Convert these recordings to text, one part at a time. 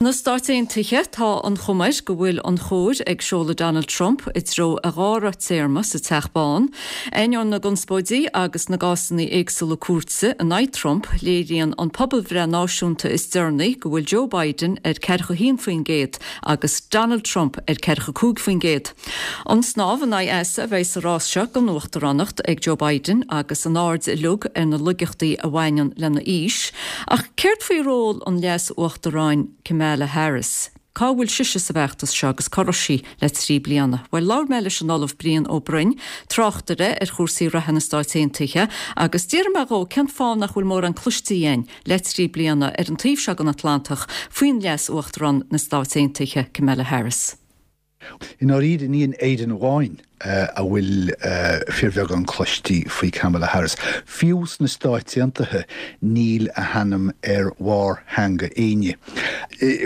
Sna Stáit Aontaithe, tá an chuma air go bhfuil an chóir ag seoladh Donald Trump i dtreo a dhara téarma sa Teach Bán. Ainneoin na gconspóidí agus na gcásanna éagsúla cúirte in aghaidh Trump, léiríonn an pobalbhreith náisiúnta is deireanaí go bhfuil Joe Biden ar 41% agus Donald Trump ar 45%. An snámh in aghaidh easa a bheidh sa rás seo don uachtaránacht ag Joe Biden agus an aird uilig ar na laigeachtaí a bhaineann lena aois. Ach céard faoi ról an Leas-Uachtaráin Kamala Harris? Cá bhfuil sise sa bhfeachtas seo agus cá raibh sí le 3 bliana? Bhuel, labhair mé leis an Ollamh Brian Ó Broin, tráchtaire ar chúrsaí reatha na Stáit Aontaithe, agus d'fhiafraigh mé dhó cén fáth nach bhfuil mórán cloiste againn le 3 bliana ar an taobh seo den Atlantach faoin Leas-Uachtarán na Stáit Aontaithe, Kamala Harris. I ndáiríre, ní in Éirinn amháin a bhfuil fíorbheagán cloistí faoi Kamala Harris. Fiú sna Stáit Aontaithe níl a hainm ar bharr theanga éinne.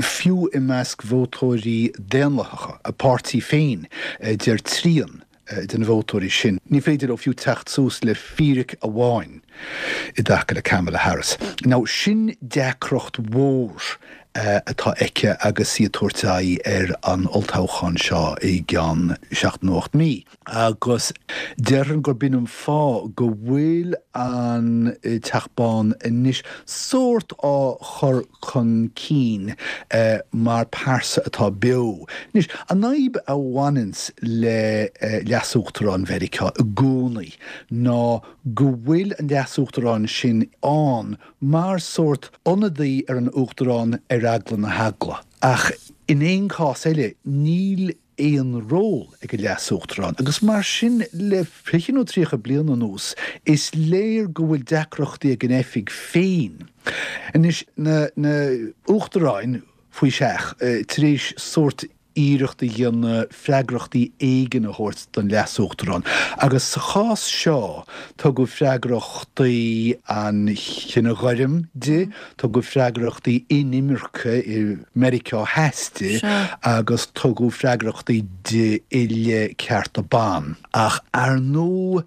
Fiú i measc vótóirí Daonlathacha a páirtí féin, deir trian de na vótóirí sin, ní féidir leo fiú teacht suas le fíric amháin i dtaca le Kamala Harris. Now, sin deacracht mhór atá aici agus í ag tabhairt aghaidh ar an olltoghchán seo i gceann seacht nó 8 mí. Agus déarfainn gurb in an fáth go bhfuil an Teach Bán anois sórt á chur chun cinn mar pearsa atá beo. Anois, an fhadhb a bhaineanns le Leas-Uachtarán Mheiriceá i gcónaí ná go bhfuil an Leas-Uachtarán sin ann mar sórt ionadaí ar an Uachtarán ar eagla na heagla. Ach in aon chás eile, níl aon ról ag an Leas-Uachtarán agus mar sin le 20 nó 30 bliain anuas is léir go bhfuil deacrachtaí ag an oifig féin. Anois, na hUachtaráin faoi seach, tar éis sórt iarracht a dhéanamh freagrachtaí éigin a thabhairt don Leas-Uachtarán agus sa chás seo tugadh freagrachtaí an chine ghoirm di, Tugadh freagrachtaí inimirce i Meiriceá Theas di agus tugadh freagrachtaí di i leith cearta ban. Ach ar ndóigh,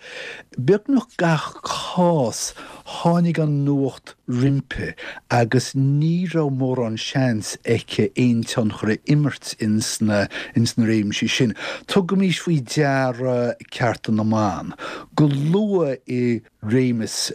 beagnach gach cás, tháinig an nuacht roimpi agus ní raibh mórán seans aici aon tionchar a imirt ins na réimsí sin. Tugaimís faoi deara cearta na mban. Go luath i réimeas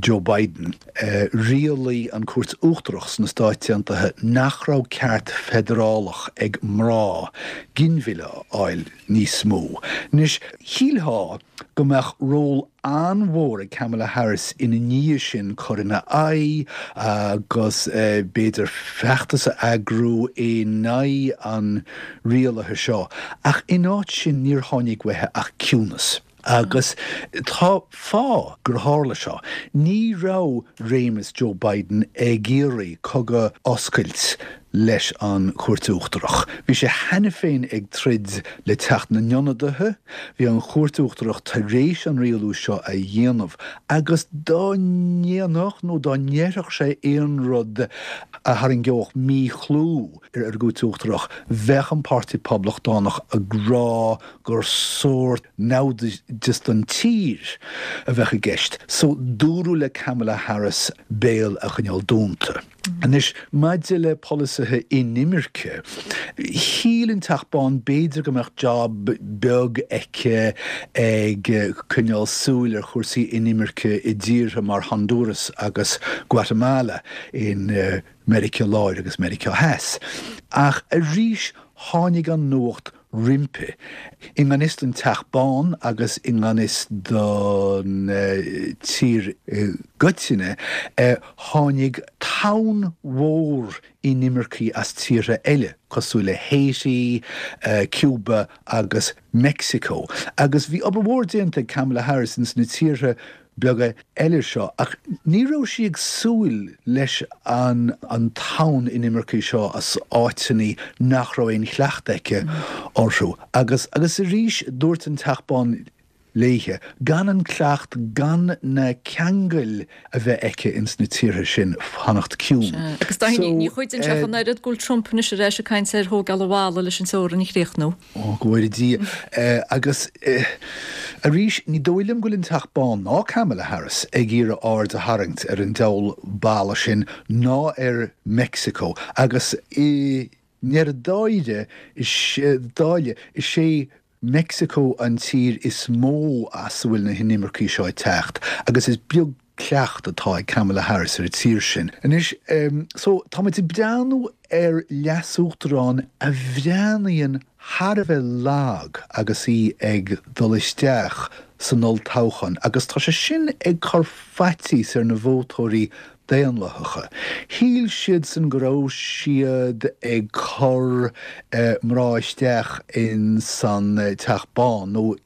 Joe Biden, rialaigh an Chúirt Uachtarach sna Stáit Aontaithe nach raibh ceart feidearálach ag mná ginmhilleadh a fháil níos mó. Anois, shílfeá go mbeadh ról an-mhór ag Kamala Harris ina ndiaidh sin cur ina aghaidh agus b'fhéidir feachtas a eagrú in aghaidh an rialaithe seo, ach in áit sin níor tháinig uaithi ach ciúnas. Agus tá fáth gur tharla seo. Ní raibh réimeas Joe Biden ag iarraidh cogadh a oscailt leis an Chúirt Uachtarach. Bhí sé cheana féin ag troid le Teach na nIonadaithe, bhí an Chúirt Uachtarach tar éis an rialú seo a dhéanamh agus dá ndéanfadh nó dá ndéarfadh sé aon rud a tharraingeodh míchlú ar an gCúirt Uachtarach, bheadh an Páirtí Poblachtánach ag rá gur sórt naimhdeas don tír a bheadh i gceist. So, dúradh le Kamala Harris béal a choinneáil dúnta. Anois, maidir le polasaithe inimirce, shíl an Teach Bán b'fhéidir go mbeadh job beag aici ag coinneáil súil ar chúrsaí inimirce i dtíortha mar Honduras agus Guatemala in Meiriceá Láir agus Meiriceá Theas. Ach arís tháinig an nuacht roimpi. I ngan fhios don Teach Bán agus i ngan fhios don tír i gcoitinne, tháinig tonn mhór inimircigh as tíortha eile, cosúil le Haiti, Cuba agus Meicsiceo. Agus bhí obair mhór déanta ag Kamala Harris ins na tíortha beaga eile seo, ach ní raibh sí ag súil leis an an tonn inimircigh seo as áiteanna nach raibh aon chleachtadh aici orthu. Agus, agus arís, dúirt an Teach Bán. léithe, gan an cleacht, gan na ceangail a bheith aici ins na tíortha sin, fanacht ciúin. Sea, agus Dáithí, ní chuidíonn sé ach an oiread go bhfuil Trump anois ar ais ag caint ar thógáil an bhalla leis an teorainn a chríochnú. Ó, go bhfóire Dia. Agus arís, ní dóigh liom go bhfuil an Teach Bán ná Kamala Harris ag iarraidh aird a tharraingt ar an diabhal balla sin ná ar Meicsiceo agus i ndeireadh dáire, dáile, is é Meicsiceo an tír is mó as a bhfuil na hinimircigh seo ag teacht agus is beag cleacht atá ag Kamala Harris ar an tír sin. Anois, so, tá muid ag breathnú ar leasuachtarán a bhreathnaíonn thar a bheith lag agus í ag dul isteach san olltoghchán agus tá sé sin ag cur faitíos ar na vótóirí Daonlathacha. Shíl siadsan go raibh siad ag cur mná isteach in san Teach Bán nó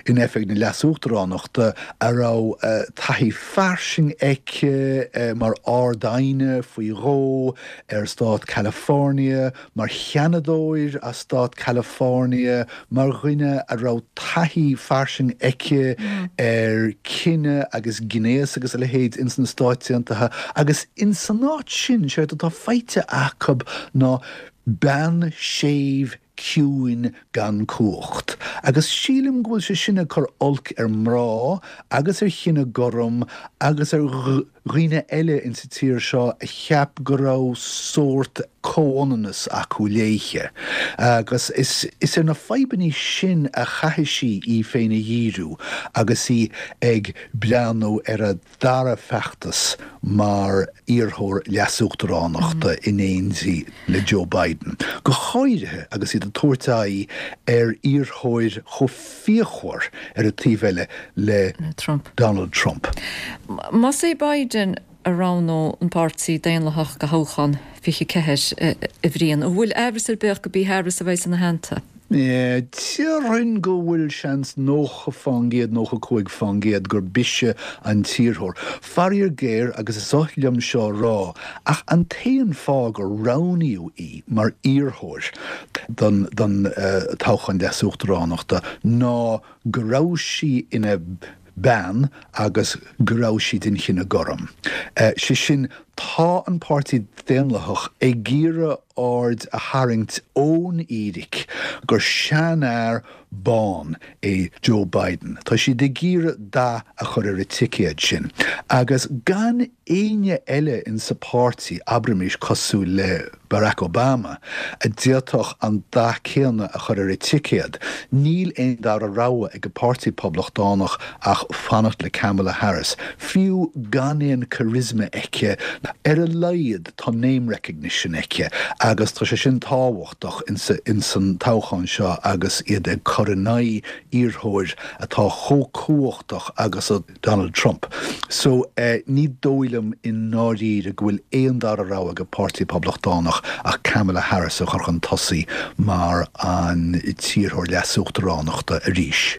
in oifig na leasuachtaránachta a raibh taithí fairsing aici mar Ard-Aighne faoi dhó ar stát California, mar sheanadóir as stát California, mar dhuine a raibh taithí fairsing aici ar cine agus gnéas agus a leithéid ins na Stáit Aontaithe agus ins an áit sin, séard atá faighte acu ná bean séimh ciúin gan cumhacht. Agus sílim go bhfuil sé sin ag cur olc ar mná agus ar chine gorm agus ar dhaoine eile insa tír seo a cheap go raibh sórt comhionannas acu léithe. Agus is ar na fadhbannaí sin a chaithfidh sí í féin a dhíriú agus í ag breathnú ar a dara feachtas mar iarrthóir leasuachtaránachta in éindí le Joe Biden, go háirithe agus iad ag tabhairt aghaidh ar iarrthóir chomh fíochmhar ar an taobh eile le Trump. Donald Trump. Más é Biden a roghnódh an Páirtí Daonlathach do thoghchán 24, a Bhriain, an bhfuil aimhreas ar bith ach gurb í Harris a bheidh ina theannta? Déarfainn go bhfuil seans 90%, 95% gurb ise an t-iarrthóir. Faraor géar, agus is oth liom seo a rá, ach an t-aon fáth gur roghnaíodh í mar iarrthóir don toghchán leasuachtaránachta ná go raibh sí ina bean agus go raibh sí den chine gorm. Sé sin, tá an Páirtí Daonlathach ag iarraidh aird a tharraingt ón fhíric gur seanfhear bán é Joe Biden. Tá siad ag iarraidh dath a chur ar an ticéad sin. Agus gan éinne eile insa pháirtí, abraimis cosúil le Barack Obama, a d'fhéadfadh an dath céanna a chur ar an ticéad, níl aon dara rogha ag an Páirtí Poblachtánach ach fanacht le Kamala Harris. Fiú gan aon charisma aici, ar a laghad tá name recognition aici agus tá sé sin tábhachtach insan toghchán seo agus iad ag cur in aghaidh iarrthóir atá chomh cumhachtach agus a Donald Trump. So, ní dóigh liom i ndáiríre go bhfuil aon dara rogha ag an Páirtí Poblachtánach ach Kamala Harris a chur chun tosaigh mar an t-iarrthóir leasuachtaránachta arís.